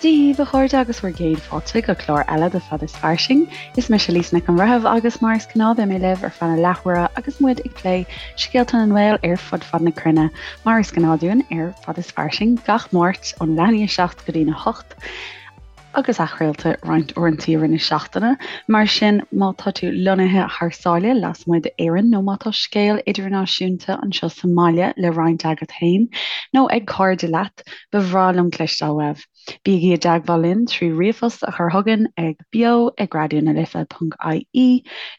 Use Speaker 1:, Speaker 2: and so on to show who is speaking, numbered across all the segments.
Speaker 1: Dia daoibh, a chairde, agus bhur gcéad fáilte go clár eile de Fad is Fairsing. Is mise Lisa Nic an Bhreithimh agus mar is gnáth beidh mé libh ar feadh na leathuaire agus muid ag plé scéalta na nGael ar fud fad na cruinne, mar is gnáth dúinn ar Fad is Fairsing gach Máirt ón leath i ndiaidh 7 go dtí'n 8. agus athchraolta roinnt uaireanta i rith na seachtaine. Mar sin, má tá tú lonnaithe thar sáile, lasmuigh d'Éirinn, nó má tá scéal idirnáisiúnta anseo sa mbaile le roinnt agat féin nó ag cairde leat, ba bhreá liom cloisteáil uaibh. Bígí i dteagmháil linn trí ríomhphost a chur chugainn ag beo ag raidionalife.ie,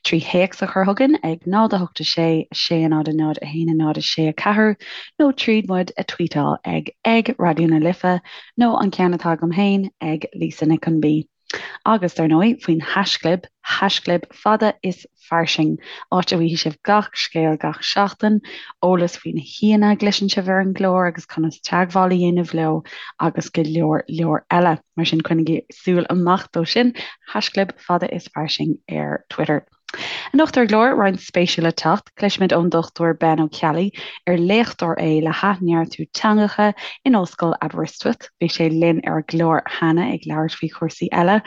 Speaker 1: trí théacs a chur chugainn ag 0 8 6 6 0 0 1 0 6 4, nó tríd muid a tweetáil ag ag Raidió na Life nó an ceann atá agam féin ag Lisa Nic an B. Agus, dar ndóigh, faoin haischlib, haischlib fada is fairsing, áit a bhfaighidh sibh gach scéal gach seachtain, eolas faoi na haíonna a gcloiseann sibh ar an gclár agus conas teagmháil a dhéanamh leo agus go leor leor eile. Mar sin, coinnigí súil amach dó sin, haischlib fada is fairsing ar Twitter. Anocht ar an gclár, roinnt spéisiúil le teacht, cloisfimid ón Dr Ben Ó Ceallaigh, ar léachtóir é le hathneartú teangacha in Ollscoil Aberystwyth. Bhí sé linn ar an gclár cheana ag labhairt faoi chúrsaí eile,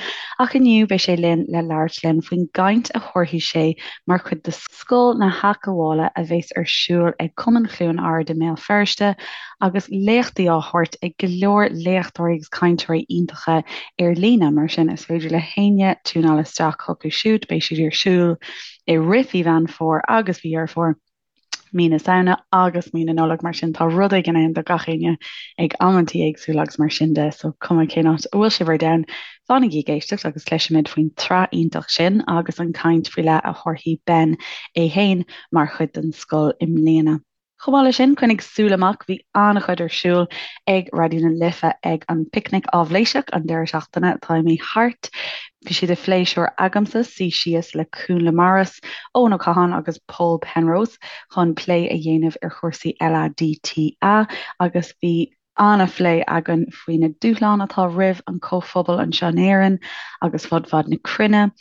Speaker 1: ach inniu beidh sé linn le labhairt linn faoin gcaint a thabharfaidh sé mar chuid de Scoil na hAthghabhála a bheas ar siúl ag Cumann Chluain Ard i mBéal Feirste agus léachtaí á thabhairt ag go leor léachtóirí agus cainteoirí iontacha ar líne, mar sin is féidir le héinne tiúnáil isteach chucu siúd, beidh siad ar siúl i rith mhí Mheán Fómhair agus mhí Dheireadh Fómhair, mí na Samhna agus mí na Nollag, mar sin tá rud éigin ann do gach éinne ag amantaí éagsúla agus mar sin de, so cuma cén áit a bhfuil sibh ar domhan, fanaigí ag éisteacht agus cloisfimid faoin tsraith iontach sin agus an caint faoi leith a thabharfaidh Ben é féin mar chuid den scoil i mbliana. Chomh maith leis sin, coinnigh súil amach, bhí an-chuid ar siúl ag Raidió na Life ag an bPicnic Áibhléiseach an deireadh seachtaine atá imithe thart. Bhí sé de phléisiúr agamsa suí síos le Cúnla Morris, Eoin Ó Catháin agus Paul Penrose chun plé a dhéanamh ar chúrsaí LADTA agus bhí an-phlé againn faoi na dúshláin atá roimh an chomhphobal anseo in Éirinn agus fud fad na cruinne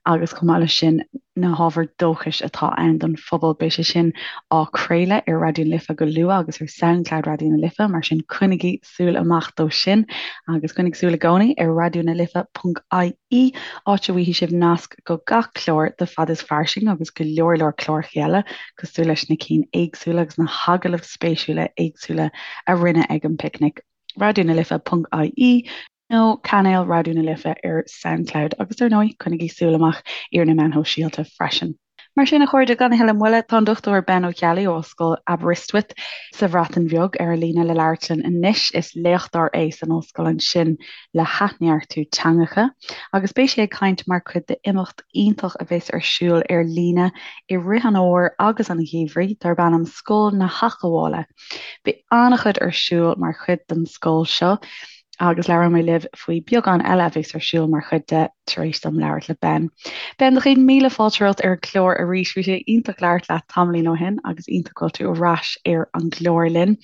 Speaker 1: agus chomh maith leis sin na hábhair dóchais atá ann don phobal. Beidh sé sin á chraoladh ar Raidió na Life go luath agus ar Soundcloud Raidió na Life, mar sin coinnigí súil amach dó sin agus coinnigh súil i gcónaí ar raidionalife.ie áit a bhfaighidh sibh nasc go gach clár de Fad is Fairsing agus go leor leor cláracha eile cosúil leis na cinn éagsúla agus na hagallaimh spéisiúla éagsúla a rinneadh ag an bPicnic, raidionalife.ie nó cainéal Raidió na Life ar Soundcloud agus ar ndóigh coinnigí súil amach ar na meáin shóisialta freisin. Mar sin, a chairde, gan a thuilleadh moille, tá an Dr Ben Ó Ceallaigh ó Ollscoil Aberystwyth sa Bhreatain Bheag ar an líne le labhairt linn anois. Is léachtóir é san ollscoil ansin le hathneartú teangacha agus beidh sé ag caint mar chuid d'imeacht iontach a bheas ar siúl ar líne i rith an fhómhair agus an gheimhridh darb ainm Scoil na hAthghabhála. Beidh an-chuid ar siúl mar chuid den scoil seo agus labhróidh mé libh faoi beagán eile a bheas ar siúl mar chuid de tar éis dom labhairt le Ben. Ben, do chéad míle fáilte romhat ar an gclár arís. Bhí sé iontach labhairt leat tamaillín ó shin agus iontach go bhfuil tú ar ais ar an gclár linn.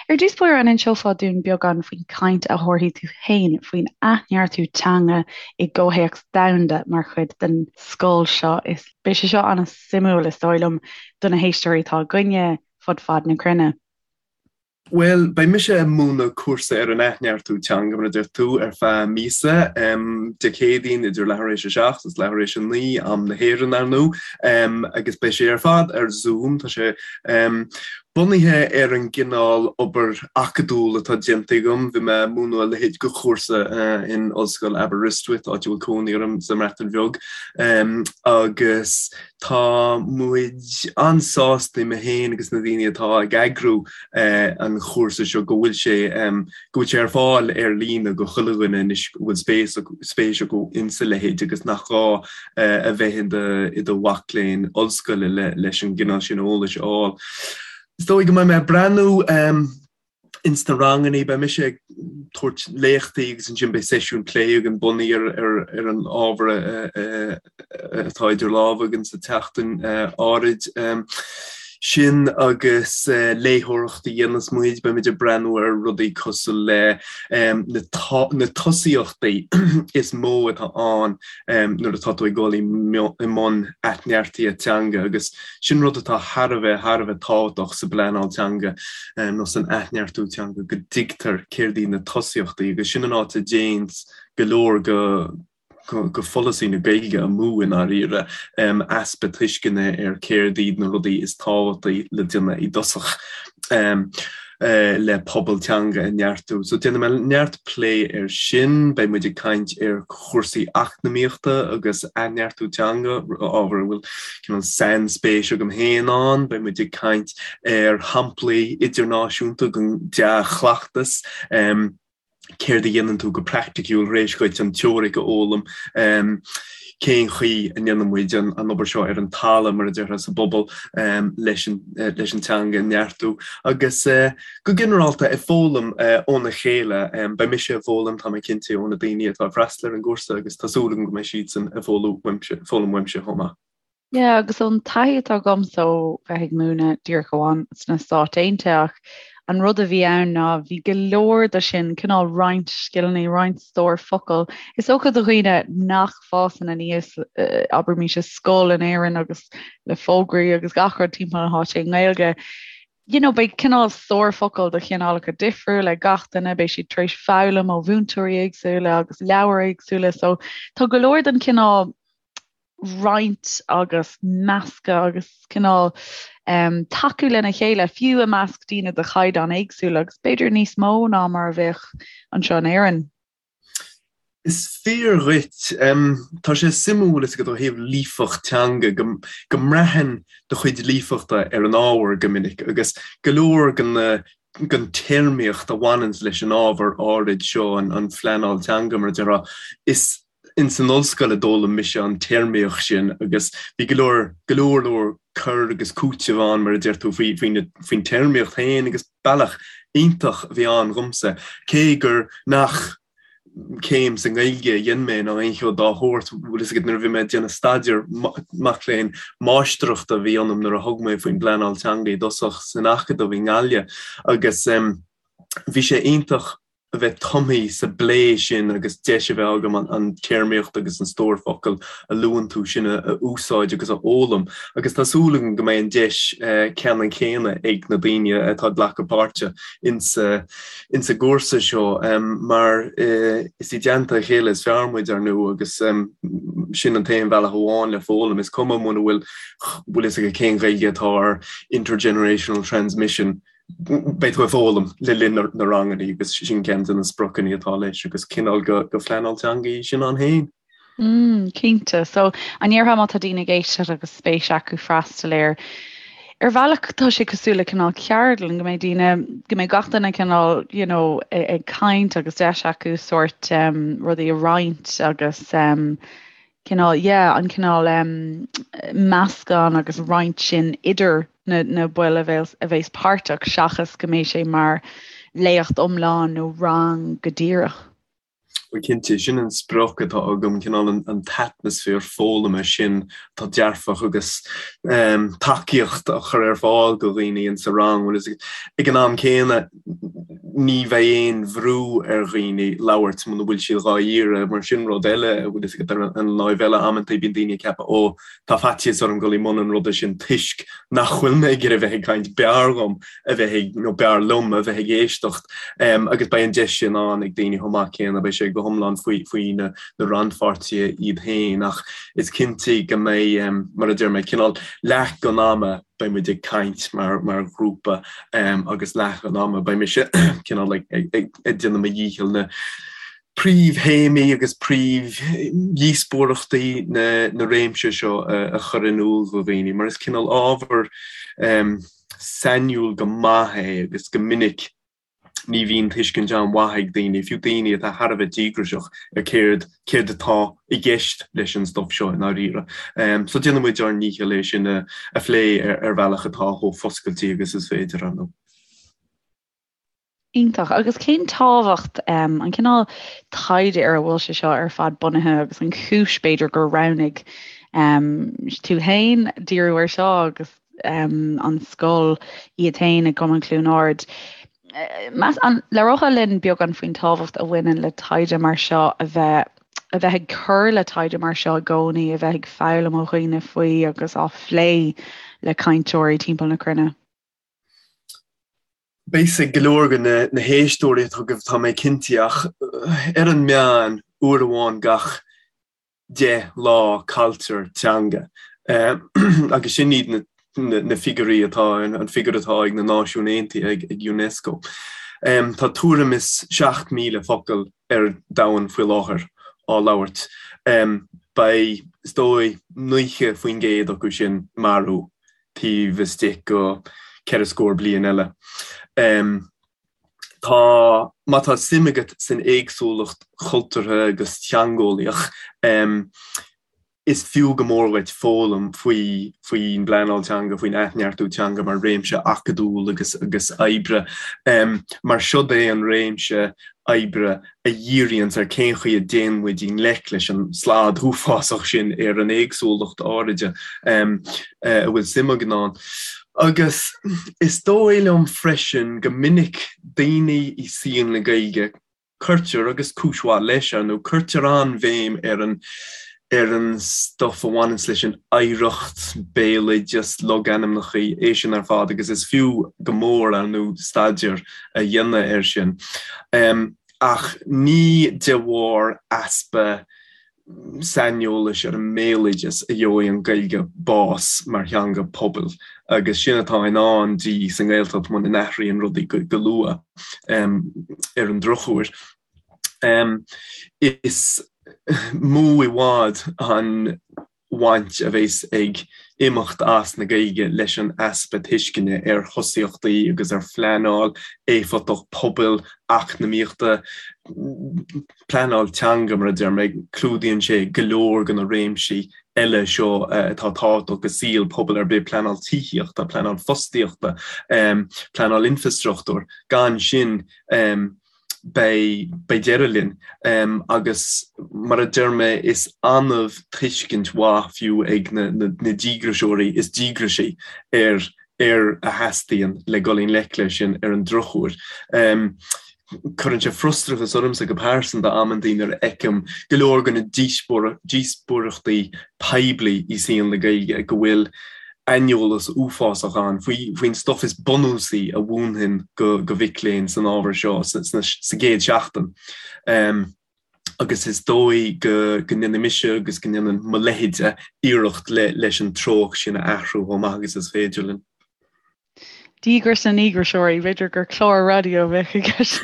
Speaker 1: Ar dtús báire, an inseofá dúinn beagán faoin gcaint a thabharfaidh tú féin faoin athneartú teanga i gcomhthéacs domhanda mar chuid den scoil seo. Is beidh sé seo an-suimiúil, is dóigh liom, do na héisteoirí atá againne fud fad na cruinne.
Speaker 2: Bhuel, beidh mise ag múineadh cúrsa ar an athneartú teanga, mar a deir tú, ar feadh míosa, Dé Céadaoin idir leathuair éis a seacht agus leathuair éis a naoi, am na hÉireann, ar ndóigh, agus beidh sé ar fad ar Zoom. Tá sé. Bunaithe ar an gcineál obair acadúil atá déanta agam, bhí mé ag múineadh a leithéid de chúrsa in Ollscoil Aberystwyth, áit a bhfuil cónaí orm sa mBreatain Bheag, agus tá muid an-sásta, mé féin agus na daoine atá ag eagrú an chúrsa seo, go bhfuil sé go bhfuil sé ar fáil ar líne go chuile dhuine anois go bhfuil spéis spéis acu insa leithéid agus nach gá a bheith i do mhac léinn ollscoile leis an gcineál sin eolais a fháil. Is dóigh go mbeidh mé ag breathnú ins na rangannaí, beidh mise ag tabhairt léachtaí agus ansin beidh seisiún plé againn bunaithe ar an ábhar atá idir lámha againn sa tseachtain áirid. Sin agus léitheoireacht a dhéanas muid, beidh muid ag breathnú ar rudaí cosúil le na tosaíochtaí is mó atá ann nuair atá tú ag dul i mbun athneartaithe teanga agus sin rud atá thar a bheith, thar a bheith tábhachtach sa bpleanáil teanga nó san athneartú teanga, go dtuigtear céard iad na tosaíochtaí agus sin an áit a dtéanns go leor go go pholasaí na Gaeilge amú i ndáiríre, easpa tuisceana ar céard iad na rudaí is tábhachtaí le déanamh i dtosach le pobal teanga a neartú. So déanfaidh mé neart plé ar sin, beidh muid ag caint ar chúrsaí eacnamaíochta agus athneartú teanga, ábhar a bhfuil cineál sainspéis agam féin ann, beidh muid ag caint ar shamplaí idirnáisiúnta den dea-chleachtas, céard a dhéanann tú go praiticiúil tar éis dhuit an teoiric a fhoghlaim, cén chaoi a ndéanann muid an obair seo ar an talamh, mar a déarfá, sa bpobal leis an teanga a neartú agus go ginearálta ag foghlaim óna chéile. Beidh mise ag foghlaim, tá mé cinnte, ó na daoine atá ag freastal ar an gcúrsa agus tá súil agam go mbeidh siadsan ag foghlaim uaimse chomh maith.
Speaker 1: Yeah, agus ón taithí atá agamsa ó bheith ag múineadh díreach amháin sna Stáit Aontaithe ach an rud a bhí ann ná bhí go leor de sin, cineál roinnt scileanna, roinnt stór focal. Is dócha do dhaoine nach bhfásann aníos, abraimis i scoil in Éirinn agus le fógraí agus gach rud timpeall na háite i nGaeilge, you know, beidh cineál stór focal de chineálacha difriúla ag gach duine, beidh siad tar éis foghlaim ó mhúinteoirí éagsúla agus leabhair éagsúla, so tá go leor den chineál roinnt agus meascadh agus cineál um, tacú lena chéile, fiú i measc daoine de chaighdeán éagsúla agus b'fhéidir níos mó ná mar a bheadh anseo in Éirinn.
Speaker 2: Is fíor dhuit. Tá sé suimiúil is agat ó thaobh líofacht teanga go, go mbraitheann do chuid líofachta ar an ábhar go minic agus go leor den den téarmaíocht a bhaineanns leis an ábhar áirid seo, an, an phleanáil teanga mar a déarfá, is ins an ollscoil a d'fhoghlaim mise an téarmaíocht sin agus bhí go leor, go leor leor cur agus cúiteamh ann, mar a deir tú, faoi, faoi na, faoin téarmaíocht féin agus bealach iontach a bhí ann dhomsa, cé gur nach céim sa nGaeilge a dhein mé ná aon cheo dá shórt, bhfuil fhios agat, nuair a bhí mé ag déanamh staidéar mac léinn máistreachta a bhí ionam nuair a thug mé faoin bpleanáil teanga i dtosach san Acadamh i nGaillimh agus bhí sé iontach a bheith tumtha sa bplé sin agus deis a bheith agam an téarmaíocht agus an stór focal a luann tú sin a úsáid agus a fhoghlaim. Agus tá súil agam go mbeidh an deis ceannann céanna ag na daoine atá ag glacadh páirte insa insa gcúrsa seo mar is i dteannta a chéile is fearr muid, ar ndóigh, agus sin an t-aon bhealach amháin le foghlaim. Is cuma muna bhfuil bhfuil fhios agat cén Ghaeilge atá ar intergenerational transmission, Beidh tú ag foghlaim le linn na ranganna agus sin ceann de na spriocanna atá leis agus cineál de phleanáil teanga í sin ann féin.
Speaker 1: Mm, cinnte. So, an ndéarfá má tá daoine ag éisteacht agus spéis acu freastal air, ar bhealach tá sé cosúil le cineál ceardlann, go mbeidh daoine, go mbeidh gach duine cineál, you know, ag caint agus deis acu sórt um, rudaí a roinnt agus um, cineál, yeah, an cineál um, meascán agus roinnt sin idir na, na baill a bheas, a bheas páirteach seachas go mbeidh sé mar léacht iomlán nó rang go díreach.
Speaker 2: Bhuel cinnte, sin an sprioc atá agam, cineál an, an t-atmaisféar foghlama sin atá dearfach agus um, tacaíocht a chur ar fáil go dhaoine insa rang. Bhuel, ag an am céanna, ní bheidh aon bhrú ar dhaoine labhairt muna bhfuil siad dhá iarraidh, mar sin rud eile, a bhfuil fhios agat, ar an láimh eile, amantaí bíonn daoine ag ceapadh 'ó, tá faitíos orm dul i mbun an ruda sin toisc nach bhfuil mé ag iarraidh bheith ag caint, b'fhearr dhom a bheith ag, nó b'fhearr liom a bheith ag éisteacht. Agus beidh an deis sin ann ag daoine chomh maith céanna, beidh sé go hiomlán faoi, faoi na rannpháirtithe iad féin ach is cinnte go mbeidh, mar a deir mé, cineál leath den ama, beidh muid ag caint mar mar ghrúpa agus leath an ama beidh mise cineál ag ag ag déanamh mo dhícheall na príomhthéamaí agus príomhdhíospóireachtaí na na réimse seo a chur in iúl do dhaoine mar is cineál ábhar sainiúil go maith é agus go minic ní bhíonn tuiscint an-mhaith ag daoine, fiú daoine atá thar a bheith díograiseach, ar céard, céard atá i gceist leis an stuif seo i ndáiríre. So déanfaidh muid ár ndícheall é sin a phlé ar bhealach atá chomh foscailte agus is féidir, ar ndóigh.
Speaker 1: Iontach. Agus cén tábhacht, an cineál taighde ar a bhfuil sé seo ar fad bunaithe agus an chúis, b'fhéidir, gur roghnaigh tú féin díriú air seo agus. an scoil iad féin i gCumann Chluain Ard. Meas, an labhrófá linn beagán faoin tábhacht a bhaineann le taighde mar seo a bheith a bheith ag cur le taighde mar seo i gcónaí, a bheith ag foghlaim ó dhaoine faoi agus á phlé le cainteoirí timpeall na cruinne?
Speaker 2: Beidh a fhios ag go leor de na héisteoirí atá agaibh, tá mé cinnte, ach ar an meán, uair amháin gach 10 lá cailltear teanga. Agus sin iad na figiúirí atá, an figiúr atá ag na Náisiúin Aontaithe, ag Unesco. Tá tuairim is 7,000 focal ar domhan faoi láthair á labhairt. Beidh, is dóigh, 90% acu sin marbh taobh istigh go ceithre scór bliain eile. Tá, má tá suim agat san éagsúlacht chultúrtha agus theangeolaíoch, is fiú go mór dhuit foghlaim faoi faoin bpleanáil teanga, faoin athneartú teanga mar réimse acadúil agus agus oibre. Mar siod é an réimse oibre a dhíríonns ar cén chaoi a dtéann muid i ngleic leis an slad uafásach sin ar an éagsúlacht áiride a bhfuil suim againn ann. Agus is dóigh liom freisin go minic daoine i saol na Gaeilge, cuirtear, agus cúis mhaith leis, ar ndóigh, cuirtear an-bhéim ar an ar an stuff a bhaineanns leis an oidhreacht, béaloideas, logainmneacha, é sin ar fad agus is fiú go mór, ar ndóigh, staidéar a dhéanamh air sin. Ach ní de bharr easpa saineolais ar an mbéaloideas a gheobhaidh an Ghaeilge bás mar theanga pobail agus sin atá i ndán di sa nGaeltacht muna n-athraíonn rudaí go luath, ar an drochuair. Is mó i bhfad an bhaint a bheas ag imeacht as na Gaeilge leis an easpa tuisceana ar thosaíochtaí agus ar phleanáil éifeachtach pobail, eacnamaíochta, pleanáil teanga mar a deir mé, clúdaíonn sé go leor de na réimsí eile seo atá tábhachtach i saol pobail ar bith, pleanáil tithíochta, pleanáil fostaíochta, pleanáil infreastruchtúir. Gan sin, beidh deireadh linn. Agus mar a deir mé, is annamh tuiscint mhaith fiú ag na díograiseoirí is díograisí ar ar a theastaíonn le dul i ngleic leis sin ar an drochuair. Cuireann sé frustrachas ormsa go pearsanta amantaí nuair a fheicim go leor de na díospóireachtaí poiblí i saol na Gaeilge go bhfuil aineolas uafásach ann faoin stuff is bunúsaí a mhúinfinn go mhic léinn san ábhar seo sa gcéad seachtain. Agus is dóigh go ndéanfaidh mise agus go ndéanann mo leithéide iarracht leis an treocht sin a athrú chomh maith agus is féidir linn.
Speaker 1: Díograis na ndíograiseoirí, b'fhéidir gur clár raidió a bheadh i gceist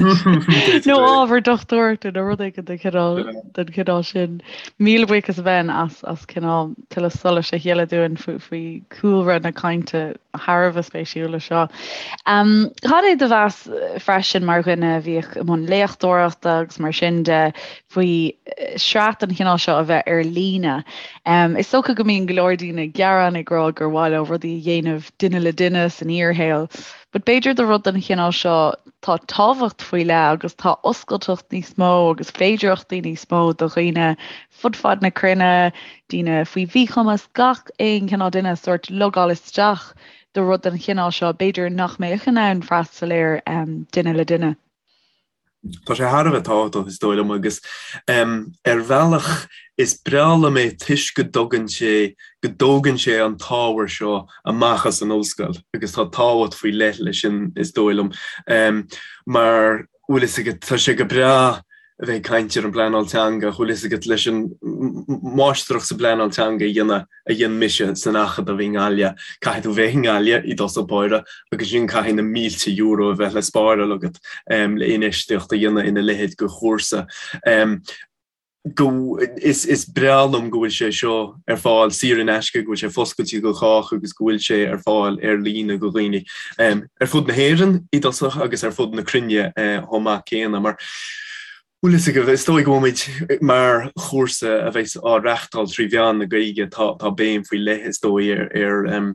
Speaker 1: nó ábhar dochtúireachta nó rud éigin den chineál den chineál sin. Míle buíochas a Ben as as cineál tuilleadh solais a shileadh dúinn faoi faoi chúlra na cainte thar a bheith spéisiúla seo. Cad é do mheas freisin mar dhuine a bhíodh i mbun léachtóireachta agus mar sin de faoi shraith den chineál seo a bheith ar líne. Is dócha go mbíonn go leor daoine ag gearán ag rá gur mhaith leo rudaí a dhéanamh duine le duine san fhíorshaol, but b'fhéidir do rud den chineál seo tá tábhacht faoi leith agus tá oscailteacht níos mó agus féidearthachtaí níos mó do dhaoine fud fad na cruinne, daoine faoi mhíchumas, gach aon chineál duine sórt logáil isteach do rud den chineál seo, b'fhéidir nach mbeadh in ann freastal air duine le duine.
Speaker 2: Tá sé thar a bheith tábhachtach, is dóigh liom, agus ar bhealach is breá liom é toisc go dtugann sé, go dtógann sé an t-ábhar seo amach as an ollscoil agus tá tábhacht faoi leith leis sin, is dóigh liom, mar bhfuil fhios agat, tá sé go breá a bheith ag caint ar an bpleanáil teanga, bhfuil fhios agat, leis an máistreacht sa bpleanáil teanga a dhéanamh a dhein mise san Acadamh i nGaillimh, caithfidh tú bheith i nGaillimh i dtosach báire agus ansin caithfidh na mílte euro a bheith le spáráil agat le infheistíocht a dhéanamh ina leithéid de chúrsa. Go, is, is breá liom go bhfuil sé seo ar fáil saor in aisce, go bhfuil sé foscailte do chách agus go bhfuil sé ar fáil ar líne do dhaoine ar fud na hÉireann i dtosach agus ar fud na cruinne chomh maith céanna mar Bhfuil fhios agaibh, is dóigh go bhfuil muid mar chúrsa a bheas á reachtáil trí mheán na Gaeilge, tá tá béim faoi leith is dóigh ar ar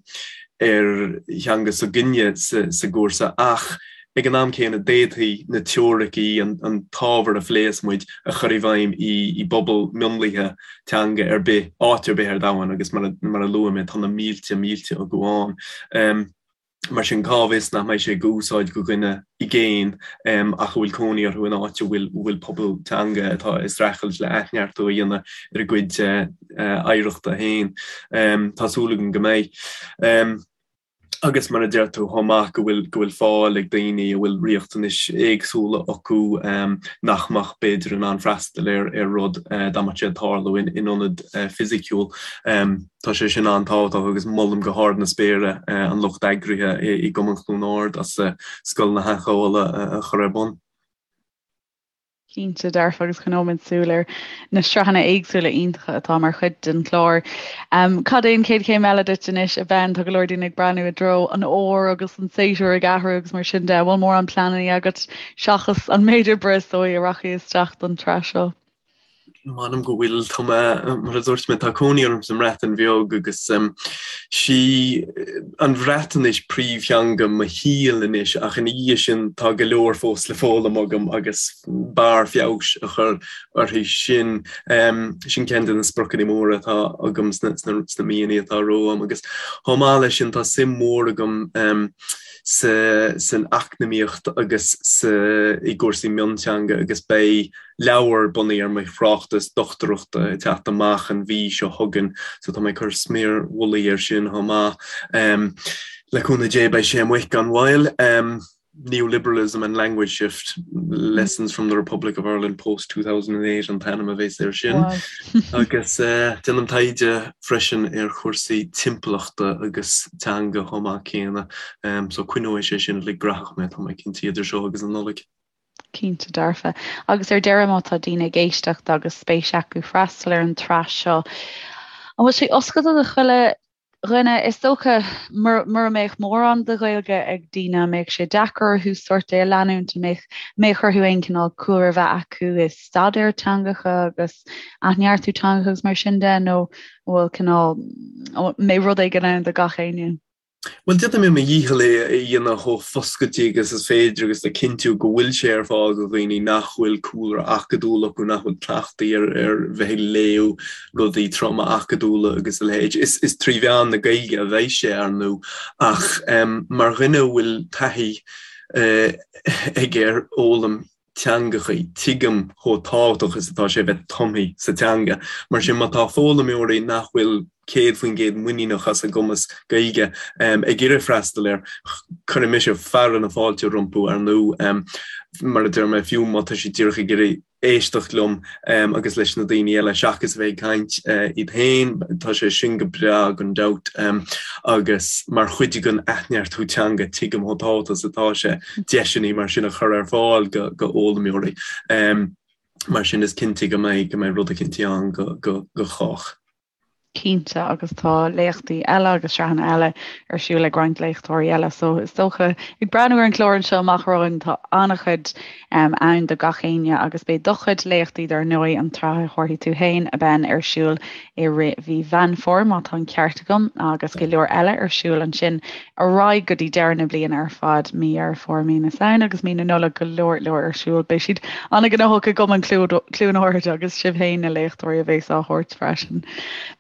Speaker 2: ar theanga s'againne sa sa gcúrsa ach ag an am céanna d'fhéadfaí na teoiricí, an t-ábhar a phléas muid a chur i bhfeidhm i bpobal mionlaithe teanga ar bith, áit ar bith ar domhan agus mar a luaigh mé tá na mílte mílte acu ann. Mar sin cá bhfios nach mbeidh sé d'úsáid do dhuine i gcéin ach a bhfuil cónaí orthu in áit a bhfuil pobal teanga atá ag streachailt le athneartú a dhéanamh ar a gcuid oidhreachta féin. Tá súil agam go mbeidh. Agus mar a deir tú chomh maith go bhfuil go bhfuil fáil ag daoine a bhfuil riachtanais éagsúla acu nach mbeadh b'fhéidir in ann freastal ar ar rud dá mbeadh sé ag tarlú in ionad fisiciúil. Tá sé sin an-tábhachtach agus molaim go hard na spéire an lucht eagraithe i gCumann Chluain Ard as Scoil na hAthghabhála a chur ar bun.
Speaker 1: Cinnte dearfa agus coinneoimid súil ar na sraitheanna éagsúla iontacha atá mar chuid den chlár. Cad é an chéad chéim eile duit anois, a Ben? Tá go leor daoine ag breathnú i dtreo an fhómhair agus an séasúr ag athrú agus mar sin de. An bhfuil mórán pleananna agat seachas an méid oibre is dóigh a rachaidh isteach don tsraith seo?
Speaker 2: M'anam go bhfuil. Tá mé, mar a dúirt mé, tá cónaí orm sa mBreatain Bheag agus sí an Bhreatnais príomhtheanga mo shaoil anois ach ina dhiaidh sin tá go leor fós le foghlaim agam agus barr feabhais a chur uirthi sin. Sin ceann de na spriocanna móra atá agam sna míonna atá romham agus chomh maith leis sin tá suim mhór agam san eacnamaíocht agus i gcúrsaí mionteanga agus beidh leabhar bunaithe ar mo thráchtas dochtúireachta ag teacht amach an mhí seo chugainn so tá mé ag cur sméar mhullaigh air sin chomh maith. Le cúnamh Dé beidh sé amuigh gan mhoill. Neoliberalism and Language Shift, Lessons from the Republic of Ireland Post 2008 an t-ainm a bheas air sin. Agus déanaim taighde freisin ar chúrsaí timpeallachta agus teanga chomh maith céanna so coinneoidh sé sin uilig graitheach mé, tá mé cinnte, idir seo agus an Nollaig.
Speaker 1: Cinnte dearfa. Agus ar deireadh, má tá daoine ag éisteacht agus spéis acu freastal ar an tsraith seo, an bhfuil sé oscailte do chuile dhuine? Is dócha, mura mbeadh mórán de Ghaeilge ag daoine, an mbeadh sé deacair orthu sórt é a leanúint? An mbeadh, mbeadh orthu aon chineál cúlra a bheith acu i staidéar teangacha agus athneartú teangacha agus mar sin de, nó an bhfuil cineál, an mbeidh rud éigin ann do gach éinne?
Speaker 2: Bhuel, déanfaidh mé mo dhícheall é a dhéanamh chomh foscailte agus is féidir agus le cinntiú go bhfuil sé ar fáil do dhaoine nach bhfuil cúlra acadúil acu, nach bhfuil cleachtaithe ar ar bheith ag léamh rudaí troma acadúla agus a leithéid. Is is trí mheán na Gaeilge a bheidh sé, ar ndóigh, ach mar dhuine a bhfuil taithí aige ar fhoghlaim teangachaí, tuigim chomh tábhachtach is atá sé bheith tumtha sa teanga. Mar sin, má tá foghlaimeoirí nach bhfuil 100% muiníneach as a gcumas Gaeilge ag iarraidh freastal air, cuirfidh mise fearadh na fáilte rompu, ar ndóigh. Mar a deir mé, fiú má tá siad díreach ag iarraidh éisteacht liom agus leis na daoine eile seachas a bheith ag caint iad féin, tá sé sin go breá gan dabht. Agus mar chuid den athneartú teanga, tuigim chomh tábhachtach is atá sé. deiseanna mar sin a chur ar fáil go d'fhoghlaimeoirí. Mar sin is cinnte go mbeidh go mbeidh rud eicínt ann go go go chách.
Speaker 1: Cinnte, agus tá léachtaí eile agus sraitheanna eile ar siúl ag roinnt léachtóirí eile, so is dócha, ag breathnú ar an chlár anseo amach romhainn, tá an-chuid ann do gach éinne agus beidh do chuid léachtaí dar ndóigh, an tsraith a thabharfaidh tú féin, a Ben, ar siúl i rith mhí Mheán Fómhair, má tá an ceart agam, agus go leor eile ar siúl ansin ar aghaidh go dtí deireadh na bliana ar fad, mí Dheireadh Fómhair, mí na Samhna agus mí na Nollag, go leor leor ar siúl. Beidh siad an-ghnóthach i gCumann Chluain Ard agus sibh féin na léachtóirí a bheas á thabhairt freisin.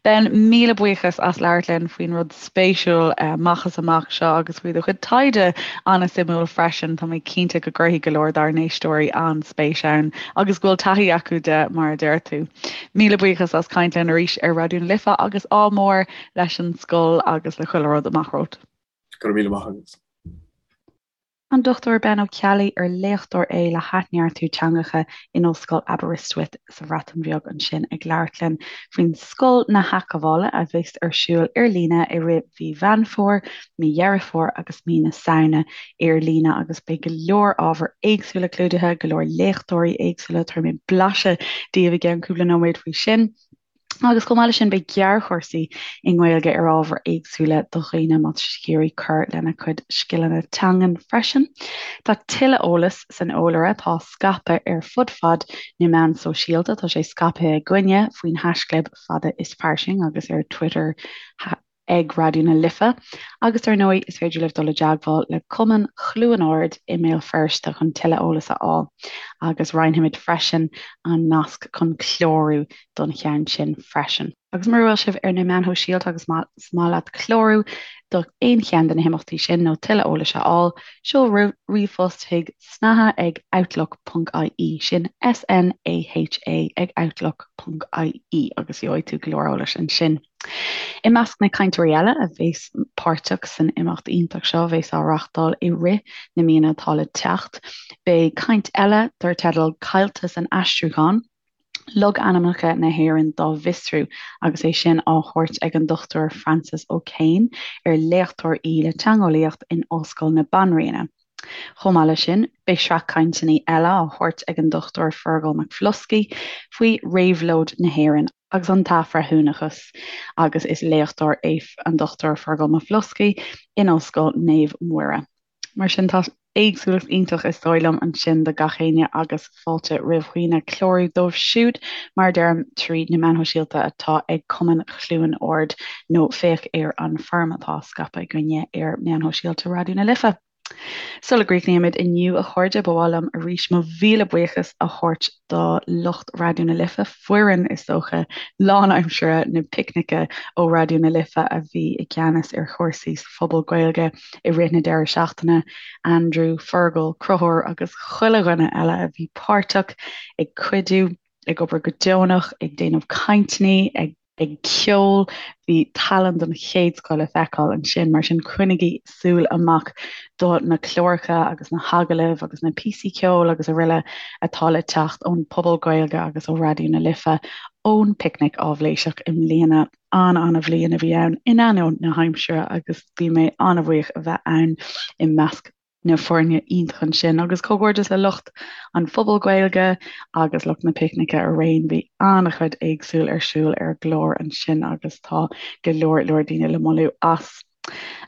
Speaker 1: Ben, míle buíochas as labhairt linn faoin rud spéisiúil amach is amach seo agus faoi do chuid taighde an-suimiúil freisin. Tá mé cinnte go gcuirfidh go leor dár n-éisteoirí an-spéis ann agus go bhfuil taithí acu de mar a deir tú. Míle buíochas as caint linn arís ar Raidió na Life agus ádh mór leis an scoil agus le chuile rud amach romhat.
Speaker 2: Go raibh míle maith agat.
Speaker 1: An Dr Ben Ó Ceallaigh, ar léachtóir é le hathneartú teangacha in Ollscoil Aberystwyth sa Bhreatain Bheag ansin ag labhairt linn faoin Scoil na hAthghabhála a bheas ar siúl ar líne i rith mhí Mheán Fómhair, mí Dheireadh Fómhair agus mí na Samhna ar líne agus beidh go leor ábhar éagsúla clúdaithe, go leor léachtóirí éagsúla, tabharfaidh mé blaiseadh daoibh i gceann cúpla nóiméad faoi sin. Agus chomh maith leis sin beidh gearrchúrsaí i nGaeilge ar ábhair éagsúla do dhaoine má tá siad ag iarraidh cur lena gcuid scileanna teangan freisin. Tá tuilleadh eolais san eolaire atá á scaipeadh ar fud fad na meán sóisialta. Tá sé scaipthe againne faoin haischlib Fada is Fairsing agus ar Twitter. ag Raidió na Life agus dar ndóigh is féidir libh dul i dteagmháil le Cumann Chluain Ard i mBéal Feirste chun tuilleadh eolais a fháil agus roinnfimid freisin an nasc chun clárú don cheann sin freisin. Agus mura bhfuil sibh ar na meáin shóisialta agus más maith leat clárú do aon cheann de na himeachtaí sin nó tuilleadh eolais a fháil, seol ríomhphost chuig snaha ag outlook ponc ie, sin S-N-A-H-A ag outlook ponc ie agus gheobhaidh tú go leor eolais ansin. I measc na cainteoirí eile a bheas páirteach san imeacht iontach seo a bheas á reáchtáil i rith na míonna atá le teacht, beidh caint eile dar teideal 'Caillte san Aistriúchán, Logainmneacha na hÉireann dá bhFiosrú' agus é sin á thabhairt ag an Dr Frances O'Kane, ar léachtóir í le teangeolaíocht in Ollscoil na Banríona. Chomh maith leis sin, beidh sraith cainteanna eile á thabhairt ag an Dr Fearghal Mac Bhloscaidh faoi réabhlóid na hÉireann agus an t-athbhreithiúnachas agus is léachtóir é an Dr Fearghal Mac Bhloscaidh in Ollscoil Naomh Muire. Mar sin tá éagsúlacht iontach is dóigh liom ansin do gach éinne agus fáilte roimh dhaoine clárú dóibh siúd, mar a deirim, tríd na meáin shóisialta atá ag Cumann Chluain Ard nó féach ar an foirm atá á scaipeadh againne ar meáin shóisialta Raidió na Life. Sula gcríochnaímid inniu, a chairde, ba mhaith liom arís mo mhíle buíochas a thabhairt do lucht Raidió na Life, foireann, is dócha, lánaimseartha na Picnice ó Raidió na Life a bhí i gceannas ar chúrsaí sa Phuball Gaeilge i rith na deireadh seachtaine, Andrew, Fergal, Conchúr agus chuile dhuine eile a bhí páirteach, ag cuidiú, ag obair go deonach, ag déanamh cainteanna, ag. ag ceol. Bhí tallann den chéad scoth le feiceáil ansin, mar sin coinnigí súil amach do na cláracha agus na hagallaimh agus na píosaí ceoil agus araile atá le teacht ón Phuball Gaeilge agus ó Raidió na Life ón bPicnic Áibhléiseach i mbliana. An-an-bhliain a bhí ann in ainneoin na haimsire agus bhí mé an-bhuíoch a bheith ann i measc na foirne iontach ansin agus comhghairdeas le lucht an Phubaill Gaeilge agus lucht na Picnice araon. Bhí an-chuid éagsúil ar siúl ar an gclár ansin agus tá go leor leor daoine le moladh as.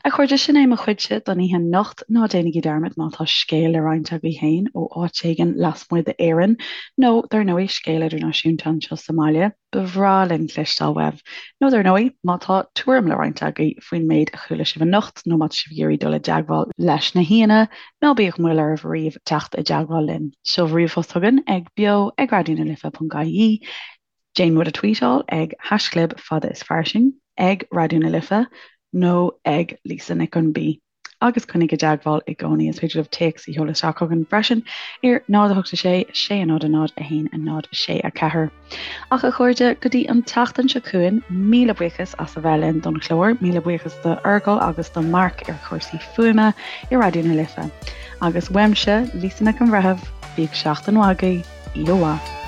Speaker 1: A chairde, sin é mo chuidse don oíche anocht. Ná déanaigí dearmad má tá scéal le roinnt agaibh féin ó áit éigin lasmuigh d'Éirinn nó dar ndóigh scéal idirnáisiúnta anseo sa mbaile, Ba bhreá linn cloisteáil uaibh. Nó dar ndóigh, má tá tuairim le roinnt agaibh faoin méid a chuala sibh anocht nó má tá sibh ag iarraidh dul i dteagmháil leis na haíonna, ná bíodh moill oraibh ariamh teacht i dteagmháil linn. Seol ríomhphost chugainn ag beo ag raidionalife.ie, déan muid a tweetáil ag haischlib fada is fairsing, ag Raidió na Life nó ag Lisa Nic an B. agus coinnigh i dteagmháil i gcónaí. Is féidir libh téacs a sheoladh isteach chugainn freisin ar 0 8 6 6 0 0 1 0 6 4. Ach a chairde, go dtí an tseachtain seo chugainn, míle buíochas as a bheith linn don chlár, míle buíochas do Fheargal agus do Mark ar chúrsaí fuaime i Raidió na Life. Agus uaimse, Lisa Nic an Bhreithimh, bíodh seachtain mhaith agaibh, oíche mhaith.